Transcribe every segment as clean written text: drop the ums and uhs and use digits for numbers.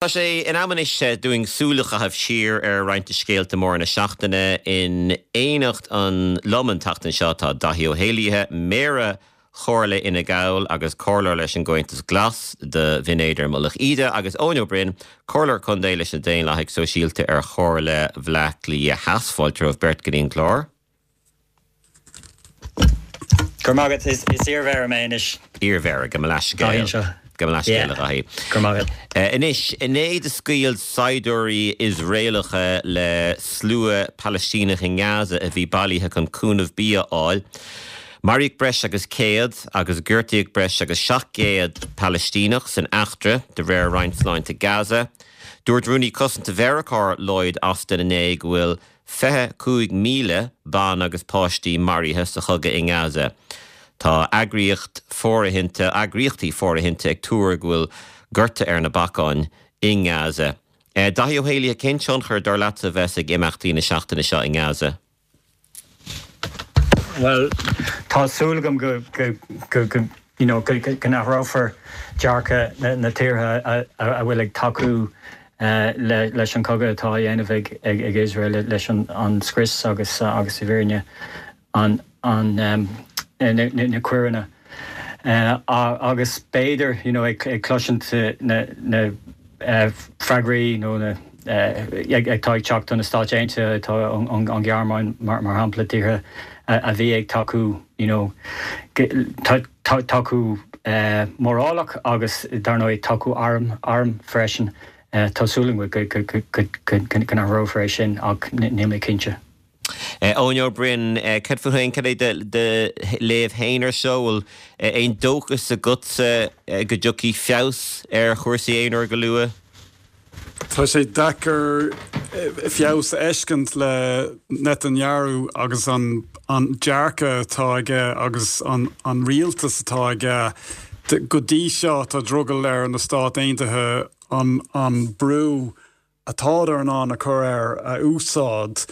Tá sé in am anois dúinn súil a chaitheamh siar ar roinnt de scéalta móra na seachtaine. In éineacht liom an tseachtain seo tá Daithí Ó hÉallaithe, Méara Chomhairle Fhine Gall agus Comhairleoir leis an gComhaontas Glas do Bhinn Éadair-Mullach Íde agus Eoin Ó Broin, Comhairleoir Contae leis na Daonlathaigh Sóisialta ar Chomhairle Bhaile Átha Cliath Theas. Fáilte romhaibh beirt go dtí an clár. Go raibh maith agat. Is iar-mhéara mé anois. Iar-mhéara, gabh mo leathscéal. Gabh mo leathscéal, a Dhaithí. Go raibh maith agat. Anois, inné do scaoil saighdiúirí Iosraelacha le slua Palaistíneach i nGaza a bhí bailithe chun cúnamh bia a fháil. Maraíodh breis agus 100 agus gortaíodh breis agus 700 Palaistíneach san eachtra, de réir Roinn Sláinte Gaza. Dúirt Rúnaí Cosanta Mheiriceá Lloyd Austin inné go bhfuil 25,000 ban agus páistí maraithe sa chogadh i nGaza. Tá eagraíocht fóirithinte, eagraíochtaí fóirithinte ag tuar go bhfuil gorta ar na bacáin i nGaza. Daithí Ó hÉallaithe, cén tionchar, dar leatsa, a bheas ag imeachtaí na seachtaine seo i nGaza? Bhuel, tá súil agam go, go, go, you know, go n-athrófar dearcadh na tíortha a bhfuil ag tacú leis an chogadh atá á dhéanamh ag Iosrael, leis an scrios agus agus i bhfírinne an na coireanna. Agus b'fhéidir, you know, ag cloisint na freagraí nó na atá ag teacht ó na Stáit Aontaithe, atá an Ghearmáin mar shampla, tíortha a bhí ag tacú, you know, tacú mórálach agus dar ndóigh tacú arm, arm freisin. Tá súil agam go go n-athrófar é sin ach níl mé cinnte. Eoin Ó Broin, cad fút féin, cad é do léamh féin ar seo? Bhfuil aon dóchas agatsa go dtiocfaidh feabhas ar chúrsaí aon uair go luath? Tá sé deacair feabhas a fheiscint le Netanyahu agus an dearcadh atá aige agus an rialtas atá aige. Go dtí seo tá drogall ar na Stáit Aontaithe an brú atádar in ann a chur air a úsáid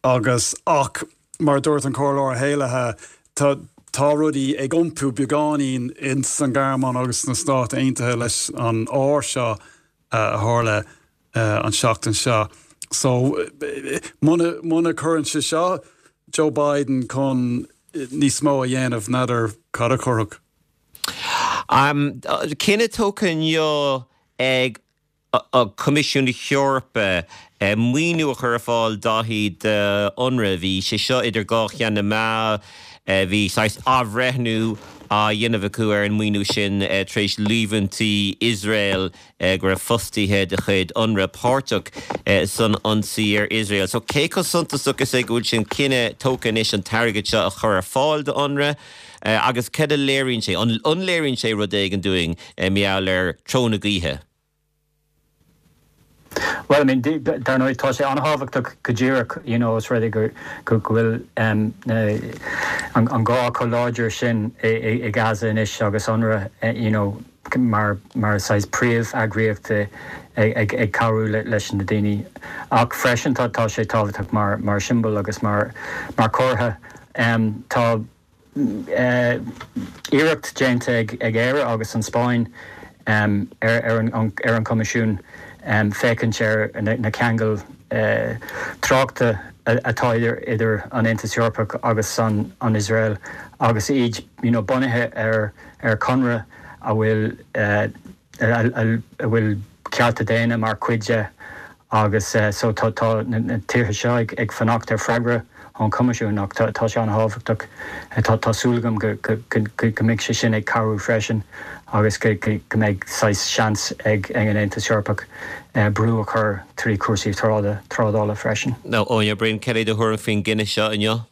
agus ach mar a dúirt an Comhairleoir Ó hÉallaithe tá tá rudaí ag iompú beagáinín ins an Ghearmáin agus sna Stáit Aontaithe leis an ár seo a tharla an seachtain seo. So muna muna cuireann sé seo Joe Biden chun níos mó a dhéanamh n'fheadar cad a chuirfeadh. Cinneadh tógtha inniu ag an Coimisiún na hEorpa maoiniú a chur ar fáil Daithí d'Unrwa. Bhí sé seo idir dhá cheann na meá. Bhí saghas athbhreithniú á dhéanamh acu ar an maoiniú sin tar éis líomhaintí Iosrael go raibh fostaithe de chuid Unrwa páirteach san ionsaí ar Iosrael. So cé chomh suntasach is é go bhfuil sin cinneadh tógtha anois an t-airgead seo a chur ar fáil d'Unrwa agus cad a léiríonn sé? An léiríonn sé rud éigin dúinn mar gheall ar treo na gaoithe? Bhuel, I mean, dar ndóigh, tá sé an-thábhachtach go díreach, you know, os rud é go go bhfuil an gá chomh láidir sin i Gaza anois agus Unrwa, you know, mar mar saghas príomh-eagraíocht ag ag cabhrú leis na daoine. Ach freisin tá tá sé tábhachtach mar mar siombail agus mar mar chomhartha. Tá iarracht déanta ag Éire agus an Spáinn ar an gCoimisiún féachaint ar na ceangail tráchta atá idir an Aontas Eorpach agus an Iosrael agus iad bunaithe ar chonradh a bhfuil a bhfuil cearta daonna mar chuid de agus so tá tá na tíortha seo ag ag fanacht ar freagra ón Choimisiún ach tá tá sé an-thábhachtach. Tá tá súil agam go go go go mbeidh sé sin ag cabhrú freisin agus go go go mbeidh saghas seans ag ag an Aontas Eorpach brú a chur trí chúrsaí tráda trádála freisin. Eoin Ó Broin, cad é do thuairim faoin gcinneadh seo inniu?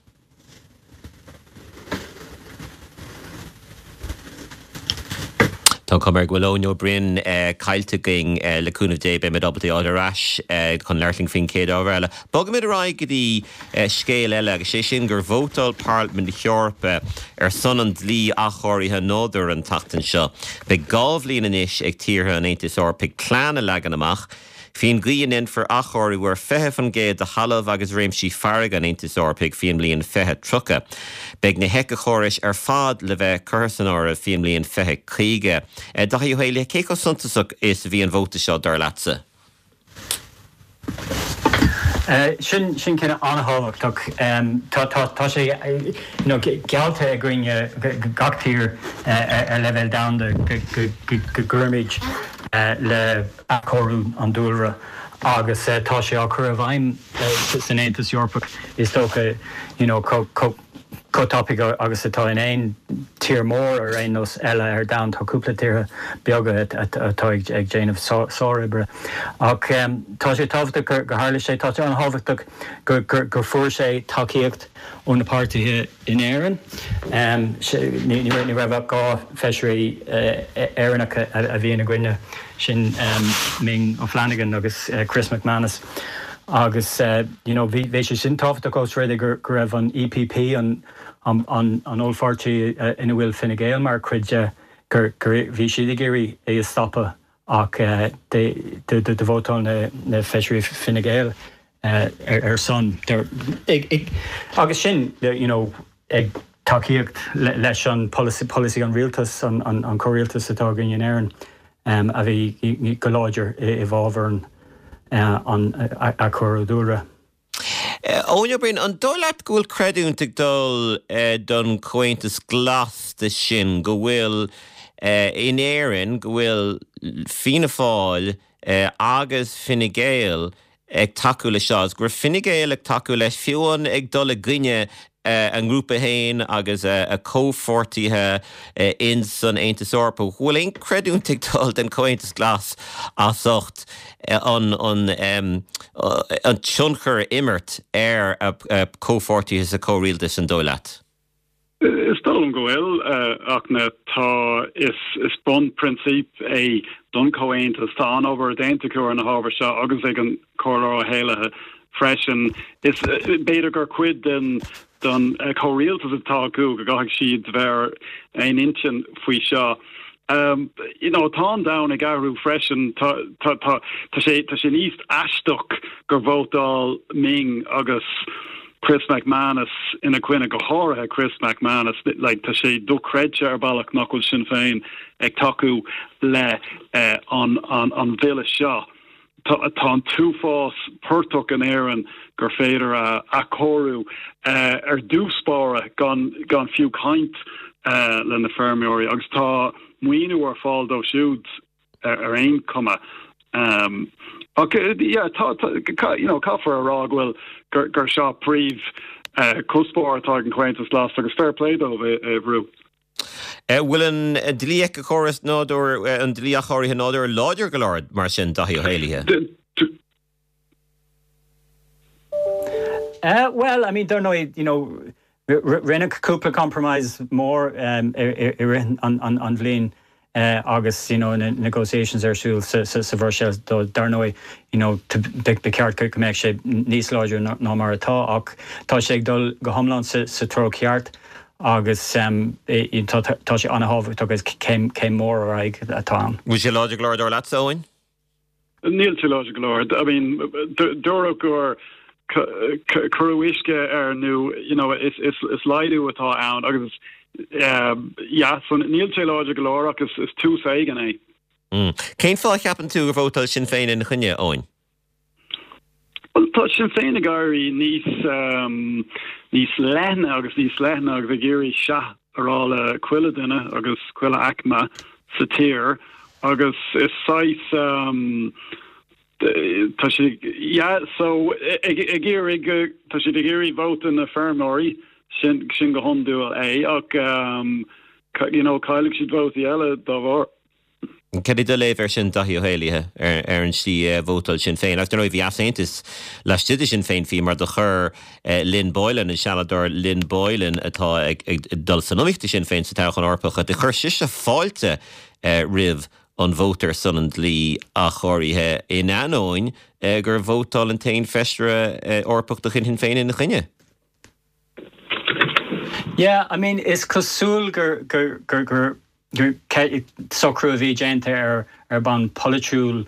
Tá an chuma air go bhfuil Eoin Ó Broin caillte againn. Le cúnamh Dé beimid ábalta é a fháil ar ais chun labhairt linn faoin chéad ábhar eile. Bogfaimid ar aghaidh go dtí scéal eile agus sé sin gur vótáil Parlaimint na hEorpa ar son an dlí athchóirithe nádúir an tseachtain seo. Beidh 2 bhliain anois ag tíortha an Aontais Eorpaigh plean a leagan amach Faoin gcaoi a ndéanfar athchóiriú ar 20% de thalamh agus réimsí farraige an Aontais Eorpaigh faoin mbliain 2030. Beidh na héiceachórais ar fad le bheith curtha san áireamh faoin mbliain 2050. Daithí Ó Héalaithe, cé chomh suntasach is a bhí an vóta seo, dar leatsa? Sin cinneadh an-thábhachtach. Tá sé geallta againne, gach tír ar leibhéal domhanda, go gcuirfimid le athchóiriú an dúlra agus tá sé á chur i bhfeidhm san Aontas Eorpach is dócha chomh chomh tapaidh agus atá in aon tír mór ar aon nós eile ar domhan. Tá cúpla tíortha beaga atá ag déanamh sároibre. Ach tá sé tábhachtach gur tharla sé. Tá sé an-thábhachtach gur fuair sé tacaíocht ó na páirtithe in Éirinn. Ní raibh ach 2 feisirí Éireannacha a bhí ina gcoinne, sin Ming O'Flanagan agus Chris MacManus. Agus you know bhí sé sin tábhachtach ós rud é go raibh an EPP, an an ollpháirtí ina bhfuil Fine Gael mar chuid de, gur bhí siad ag iarraidh é a stopadh ach do vótáil na feisirí Fine Gael ar son. Agus sin you know ag tacaíocht leis an polasaí an rialtas, an comhrialtas atá againn in Éirinn a bhí go láidir i bhfabhar an athchóiriú dúlra. Eoin Ó Broin, an dóigh leat go bhfuil creidiúint ag dul don Chomhaontas Glas de sin, go bhfuil in Éirinn, go bhfuil Fianna Fáil agus Fine Gael ag tacú leis seo agus go raibh Fine Gael ag tacú leis, fiú amháin ag dul i gcoinne a ngrúpa féin agus a comhpháirtithe in san Aontas Eorpach. Bhfuil aon creidiúint ag dul den Chomhaontas Glas as ucht an an tionchar a imirt ar a comhpháirtithe sa chomhrialtas, an dóigh leat? Is dóigh liom go bhfuil, ach na tá is is bunphrionsip é don Chomhaontas. Tá an-obair déanta acu ar na hábhair seo agus ag an Comhairleoir Ó hÉallaithe freisin. Is b'fhéidir gur cuid den den chomhrialtas atá acu go gcaithfidh siad bheith ar aon intinn faoi seo. You know, tá an domhan ag athrú freisin. Tá tá tá tá sé tá sé níos aisteach gur vótáil Ming agus Chris MacManus ina coinne, go háirithe Chris MacManus, like tá sé dochreidte ar bhealach nach bhfuil Sinn Féin ag tacú le an an bhille seo. Tá tá an t-uafás portach in Éirinn gur féidir a athchóiriú ar dtús báire gan gan fiú caint le na feirmeoirí agus tá maoiniú ar fáil dóibh siúd. ar aon chuma. Ach yeah, tá, tá, you know, caithfear a rá go bhfuil, gur, gur seo príomh cuspóir atá ag an Chomhaontas Glas agus fair play dóibh é a bhrú. Bhfuil an dlí éiceachóras nádúir, an dlí athchóirithe nádúir láidir go leor mar sin, Daithí Ó hÉalaithe? Bhuel, I mean, dar ndóigh, you know, Rinneadh cúpla compromise mór i rith an bhliain agus you know na negotiations ar siúl sa Bhruiséil dar ndóigh you know ba cheart go mbeadh sé níos láidre ná mar atá ach tá sé ag dul go hiomlán sa treo ceart agus tá sé an-thábhachtach agus céim mhór ar aghaidh atá ann. Bhfuil sé láidir go leor dar leatsa, Eoin? Níl sé láidir go leor. I mean, dúradh gur cuireadh uisce air nó you know, is, is, is laghdú atá ann agus yeah, so níl sé láidir go leor ach is, is tús éigin é. Mm. Cén fáth a cheapann tú gur vótáil Sinn Féin ina choinne, Eoin? Bhuel, tá Sinn Féin ag éirí níos, um, níos leithne agus níos leithne agus ag iarraidh sea a rá le chuile duine agus chuile aicme sa tír agus is saghas um, tá siad yeah, so ag, ag iarraidh tá siad ag iarraidh vóta na feirmeoirí sin, sin go hiondúil é ach um, you know, caillfidh siad vótaí eile dá bharr. Cad é do léamh air sin, Daithí Ó hÉalaithe, ar an slí a vótáil Sinn Féin? Agus dar ndóigh bhí easaontas laistigh de Shinn Féin fiú mar do chuir Lynn Boylan, an Seanadóir Lynn Boylan atá ag dul san iomaíocht do Shinn Féin sa toghchán Eorpach, do chuir sise fáilte roimh an vóta ar son an dlí athchóirithe in ainneoin gur vótáil an t-aon feisire Eorpach de chuid Shinn Féin ina choinne. Yeah, I mean, is cosúil gur, gur, gur, gur socrú a bhí déanta ar ar bonn polaitiúil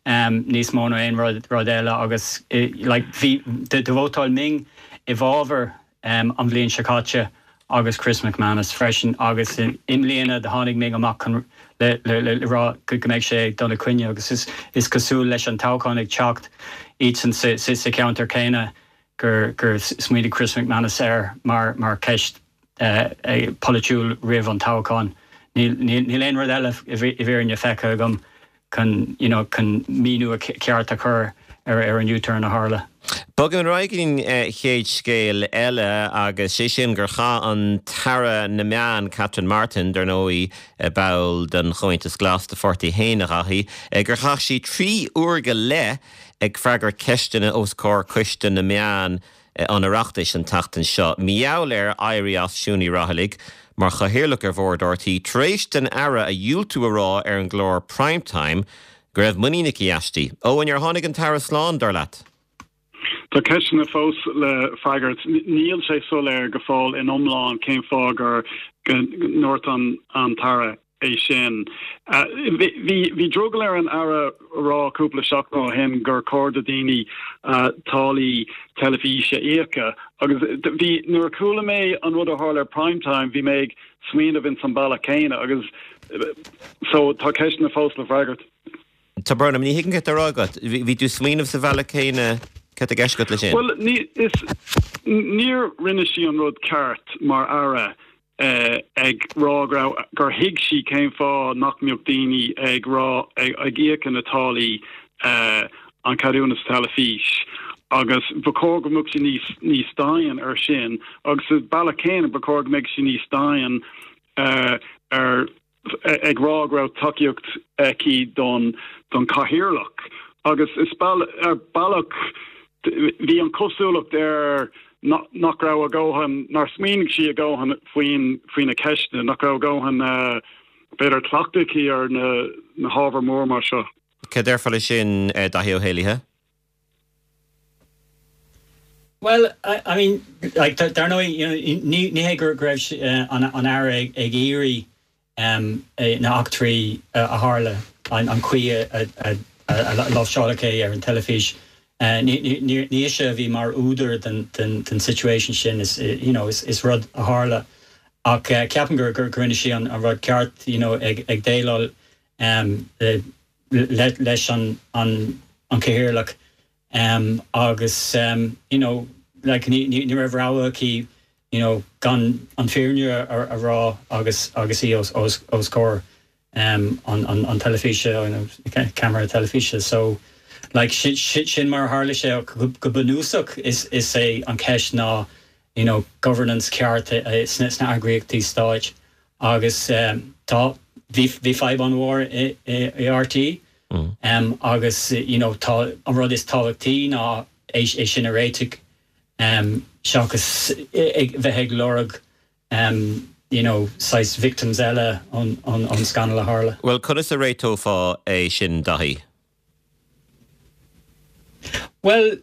níos mó ná aon rud rud eile agus like bhí do vótáil Ming i bhfabhar an bhliain seo caite. agus Chris McManus freisin agus i mbliana do tháinig Ming amach chun le le rá go mbeidh sé ag dul i coinne agus is is cosúil leis an toghchán ag teacht iadsan sa sa cheantar céanna gur gur smaoinigh Chris McManus air mar mar cheist polaitiúil roimh an toghchán. Níl níl aon rud eile i bhfírinne feicthe agam chun you know chun míniú ceart a chur ar ar an U-turn a tharla. Bogaim ar aghaidh go dtí an chéad scéal eile agus sé sin gur chaith an tAire na Meán, Catherine Martin, dar ndóigh ball den Chomhaontas Glas, do pháirtí féin a Dhaithí, gur chaith sí 3 uair go leith ag freagairt ceisteanna os comhair Coiste na Meán an Oireachtais an tseachtain seo. Mar gheall ar éirí as Siún Ní Raghallaigh mar chathaoirleach ar bhord RTÉ tar éis don Aire a dhiúltú a rá ar an gclár Prime Time go raibh muinín aici aisti. Eoin, ar tháinig an tAire slán, dar leat? Tá ceisteanna fós le freagairt. Níl sé soiléir go fóill in iomlán cén fáth gur go ndúirt an tAire é sin. Bhí drogall ar an Aire a rá cúpla seachtain ó shin gur chóir do daoine táillí teilifíse a íoc agus bhí, nuair a chuala mé an rud a tharla ar Prime Time, bhí mé ag smaoineamh ins an bealach céanna agus so tá ceisteanna fós le freagairt. Tá brón orm, ní thuigim céard atá á rá agat. Bhí tú ag smaoineamh sa bhealach céanna, céard atá i gceist agat leis sin? Bhuel, ní, is, níor rinne sí an rud ceart mar Aire. ag rá go raibh, gur thuig sí cén fáth nach mbeadh daoine ag rá, ag íoc na táillí an ceadúnas teilifís agus ba chóir go mbeadh sí níos, níos dian ar sin agus sa bealach céanna ba chóir go mbeadh sí níos dian ar ag rá go raibh tacaíocht aici don don chathaoirleach agus is ar bealach bhí an cosúlacht air nach raibh a dhóthain, nár smaoinigh sí a dhóthain faoin faoi na ceisteanna, nach raibh a dhóthain b'fhéidir cleachtadh aici ar na na hábhair mór mar seo. Cad déarfá leis sin, Daithí Ó hÉalaithe? Bhuel, I mean, like, dar ndóigh, you know, ní, ní hé go raibh an, an Aire ag, ag iarraidh um, na heachtraí a tharla, an, an chaoi a, a, a, a láimhseáladh é ar an teilifís. Uh, ní, ní, ní, ní ise a bhí mar údar den, den, den situation sin, is, you know, is, is rud a tharla. Ach uh, ceapaim gur, gur, gur rinne sí an, an rud ceart, you know, ag, ag déileáil um, le, leis an an cathaoirleach agus you know like ní ní raibh rogha aici you know gan an fírinne a rá agus agus í os os os comhair an an an teilifíse you know ceamara teilifíse so like sin sin mar a tharla sé ach go bunúsach is is é an ceist ná you know governance ceart sna sna eagraíochtaí stáit Agus tá, bhí, bhí fadhb an-mhór i, i RTÉ agus you know tá, an rud is tábhachtaí ná é, é sin a réiteach seachas ag, bheith ag lorg you know saghas victims eile ón, ón, ón scannal a tharla. Bhuel, conas a réiteofá é sin, Daithí? Bhuel,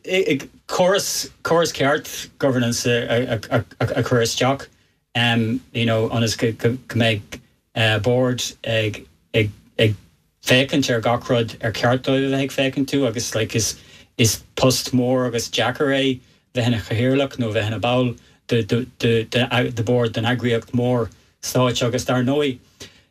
córas, córas ceart governance a, a, a chur isteach. you know ionas go mbeidh bord ag ag ag féachaint ar gach rud ar cheart dóibh a bheith ag féachaint orthu agus like is is post mór agus deacair é bheith ina chathaoirleach nó bheith ina ball de de de de de bord den eagraíocht mór stáit agus dar ndóigh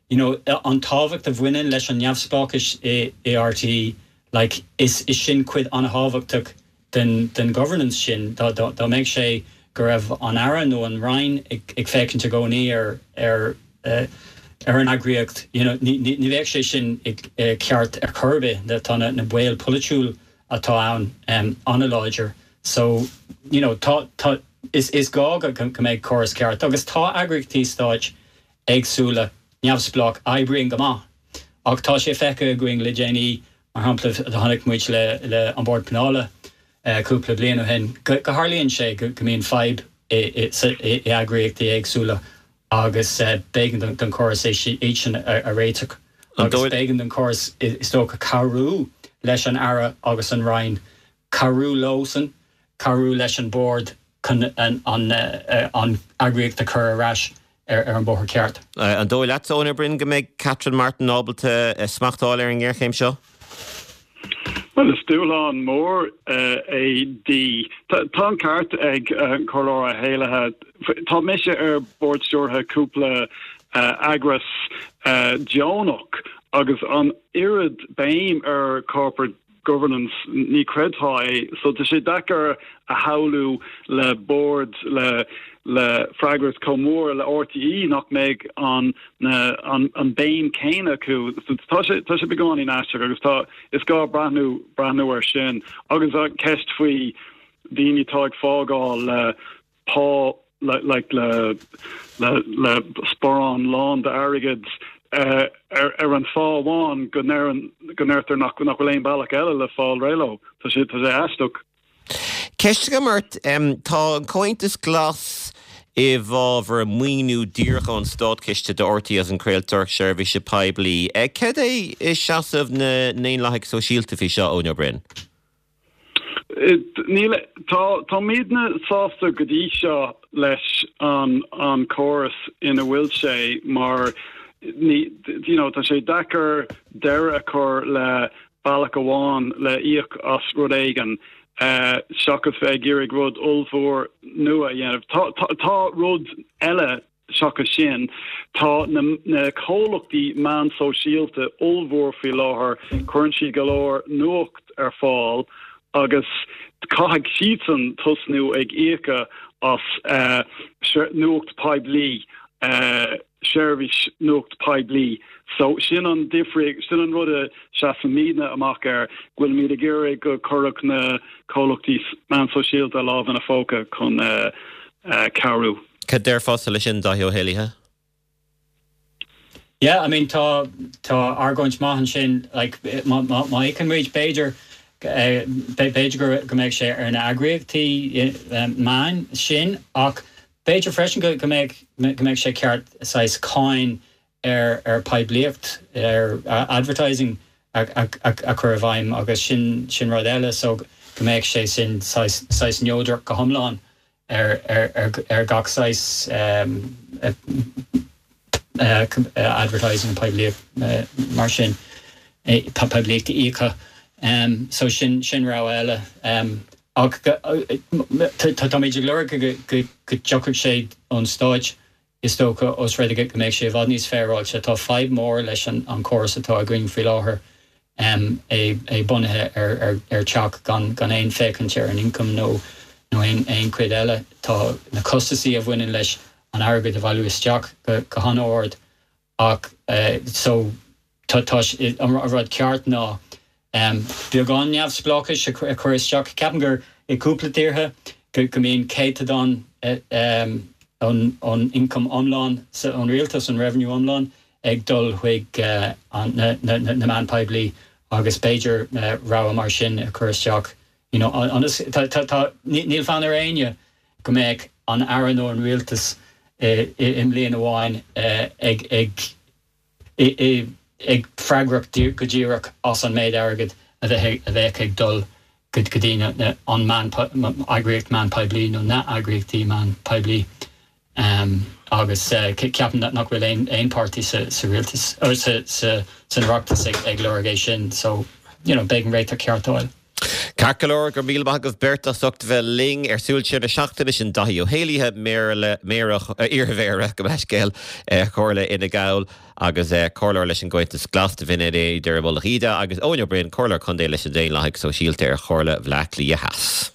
you know an tábhacht a bhaineann leis an neamhspleáchas i i RTÉ like is is sin cuid an-thábhachtach den den governance sin, dá dá mbeadh sé go raibh an Aire nó an Roinn ag ag féachaint i gcónaí ar ar ar an eagraíocht, you know, ní ní ní bheadh sé sin ag ceart ar chor ar bith. Tá na na baol polaitiúil atá ann an-láidir. So, you know, tá tá is is gá go go mbeidh córas ceart agus tá eagraíochtaí stáit éagsúla neamhspleách oibríonn go maith ach tá sé feicthe againn le déanaí Mar shampla, chonaic muid le An Bord Pleanála cúpla bliain ó shin go tharlaíonn sé go mbíonn fadhb i eagraíochtaí éagsúla agus b'éigean don chóras iad sin a réiteach agus b'éigean don chóras is dócha cabhrú leis an Aire agus an Roinn, cabhrú leosan, cabhrú leis an Bord chun an eagraíocht a chur ar ais ar an bóthar ceart. An dóigh leat, Eoin Ó Broin, go mbeidh Catherine Martin ábalta smacht a fháil ar an ngéarchéim seo? Bhuel, is dúshlán mór é di. Tá an ceart ag an Comhairleoir Ó hÉallaithe. Tá mise ar bord stiúrtha cúpla eagras deonach agus an oiread béim ar corporate governance, ní chreidfeá é. So tá sé deacair a shamhlú le bord le le freagracht chomh mór le RTÉ nach mbeidh an na an an béim céanna acu. So tá sé tá sé beagáinín aisteach agus tá is gá breathnú breathnú air sin. Agus an ceist faoi daoine atá ag fágáil le pá like le le le sparán lán d'airgead ar ar an fáth amháin go ndeireann go ndeirtear nach nach bhfuil aon bealach eile le fáil réidh leo. Tá sé tá sé aisteach. Ceist agam ort, tá an Comhaontas Glas i bhfabhar maoiniú díreach ón státchiste do RTÉ as an craoltóireacht seirbhíse poiblí. Cad é seasamh na nDaonlathaigh Sóisialta faoi seo, Eoin Ó Broin? Níl, tá, táimidne sásta go dtí seo leis an an córas ina bhfuil sé mar ní, you know, tá sé deacair deireadh a chur le bealach amháin le íoc as rud éigin seachas bheith ag iarraidh rud ollmhór nua a dhéanamh. Tá, tá, tá rud eile Seachas sin, tá na comhlachtaí meán sóisialta ollmhór faoi láthair, cuireann siad go leor nuacht ar fáil agus caithfidh siadsan tosnú ag íoc as nuacht poiblí, seirbhís nuacht poiblí. So sin an difríocht, sin an rud a seasaimidne amach air, go bhfuilimid ag iarraidh go cuirfeadh na comhlachtaí meán sóisialta a lámh ina phóca chun cabhrú. Cad déarfása leis sin, Dáithí Ó hÉallaithe? Yeah, I mean tá tá argóint maith ansin, like má má má íocann muid b'fhéidir b'fhéidir go go mbeidh sé ar na eagraíochtaí meáin sin ach b'fhéidir freisin go go mbeidh go mbeidh sé ceart saghas cáin ar ar poiblíocht, ar advertising a a chur i bhfeidhm agus sin sin rud eile so go mbeadh sé sin saghas saghas neodrach go hiomlán ar ar gach saghas advertising poiblíocht mar sin, poiblíocht íoctha. So sin sin rogha eile. Ach táimid ag lorg go dtiocfadh sé ón stáit Is dócha, ós rud é go mbeadh sé i bhfad níos féaráilte, tá fadhb mhór leis an chóras atá againn faoi láthair, é bunaithe ar teach gan aon féachaint ar an ioncam nó aon chuid eile. Tá na costasaí a bhaineann leis an airgead a bhailiú isteach go han-ard ach so tá an rud ceart ná beagán neamhspleáchais a chur isteach. Ceapaim gur i gcúpla tíortha go mbíonn céatadán ón ioncam iomlán ón rialtas, an revenue iomlán, ag dul chuig na meáin poiblí agus b'fhéidir rogha mar sin a chur isteach. You know, ionas, níl fonn ar éinne go mbeadh an Aire nó an rialtas i mbliain amháin ag ag ag freagrach go díreach as an méid airgid a bheadh ag dul go dtí an meán, eagraíocht meán poiblí nó na heagraíochtaí meán poiblí agus ceapaim nach bhfuil aon páirtí sa rialtas, san Oireachtas ag lorg é sin so you know beidh an réiteach ceart a fháil. Ceart go leor, go raibh míle maith agaibh beirt as ucht a bheith linn ar Súil Siar na Seachtaine, sin Daithí Ó hÉallaithe, Méara, Méara, iarMhéara, gabh mo leithscéal, Chomhairle Fhine Gall agus Comhairleoir leis an gComhaontas Glas do Bhinn Éadair i Mullach Íde agus Eoin Ó Broin, Comhairleoir Contae leis na Daonlathaigh Sóisialta ar Chomhairle Bhaile Átha Cliath Theas.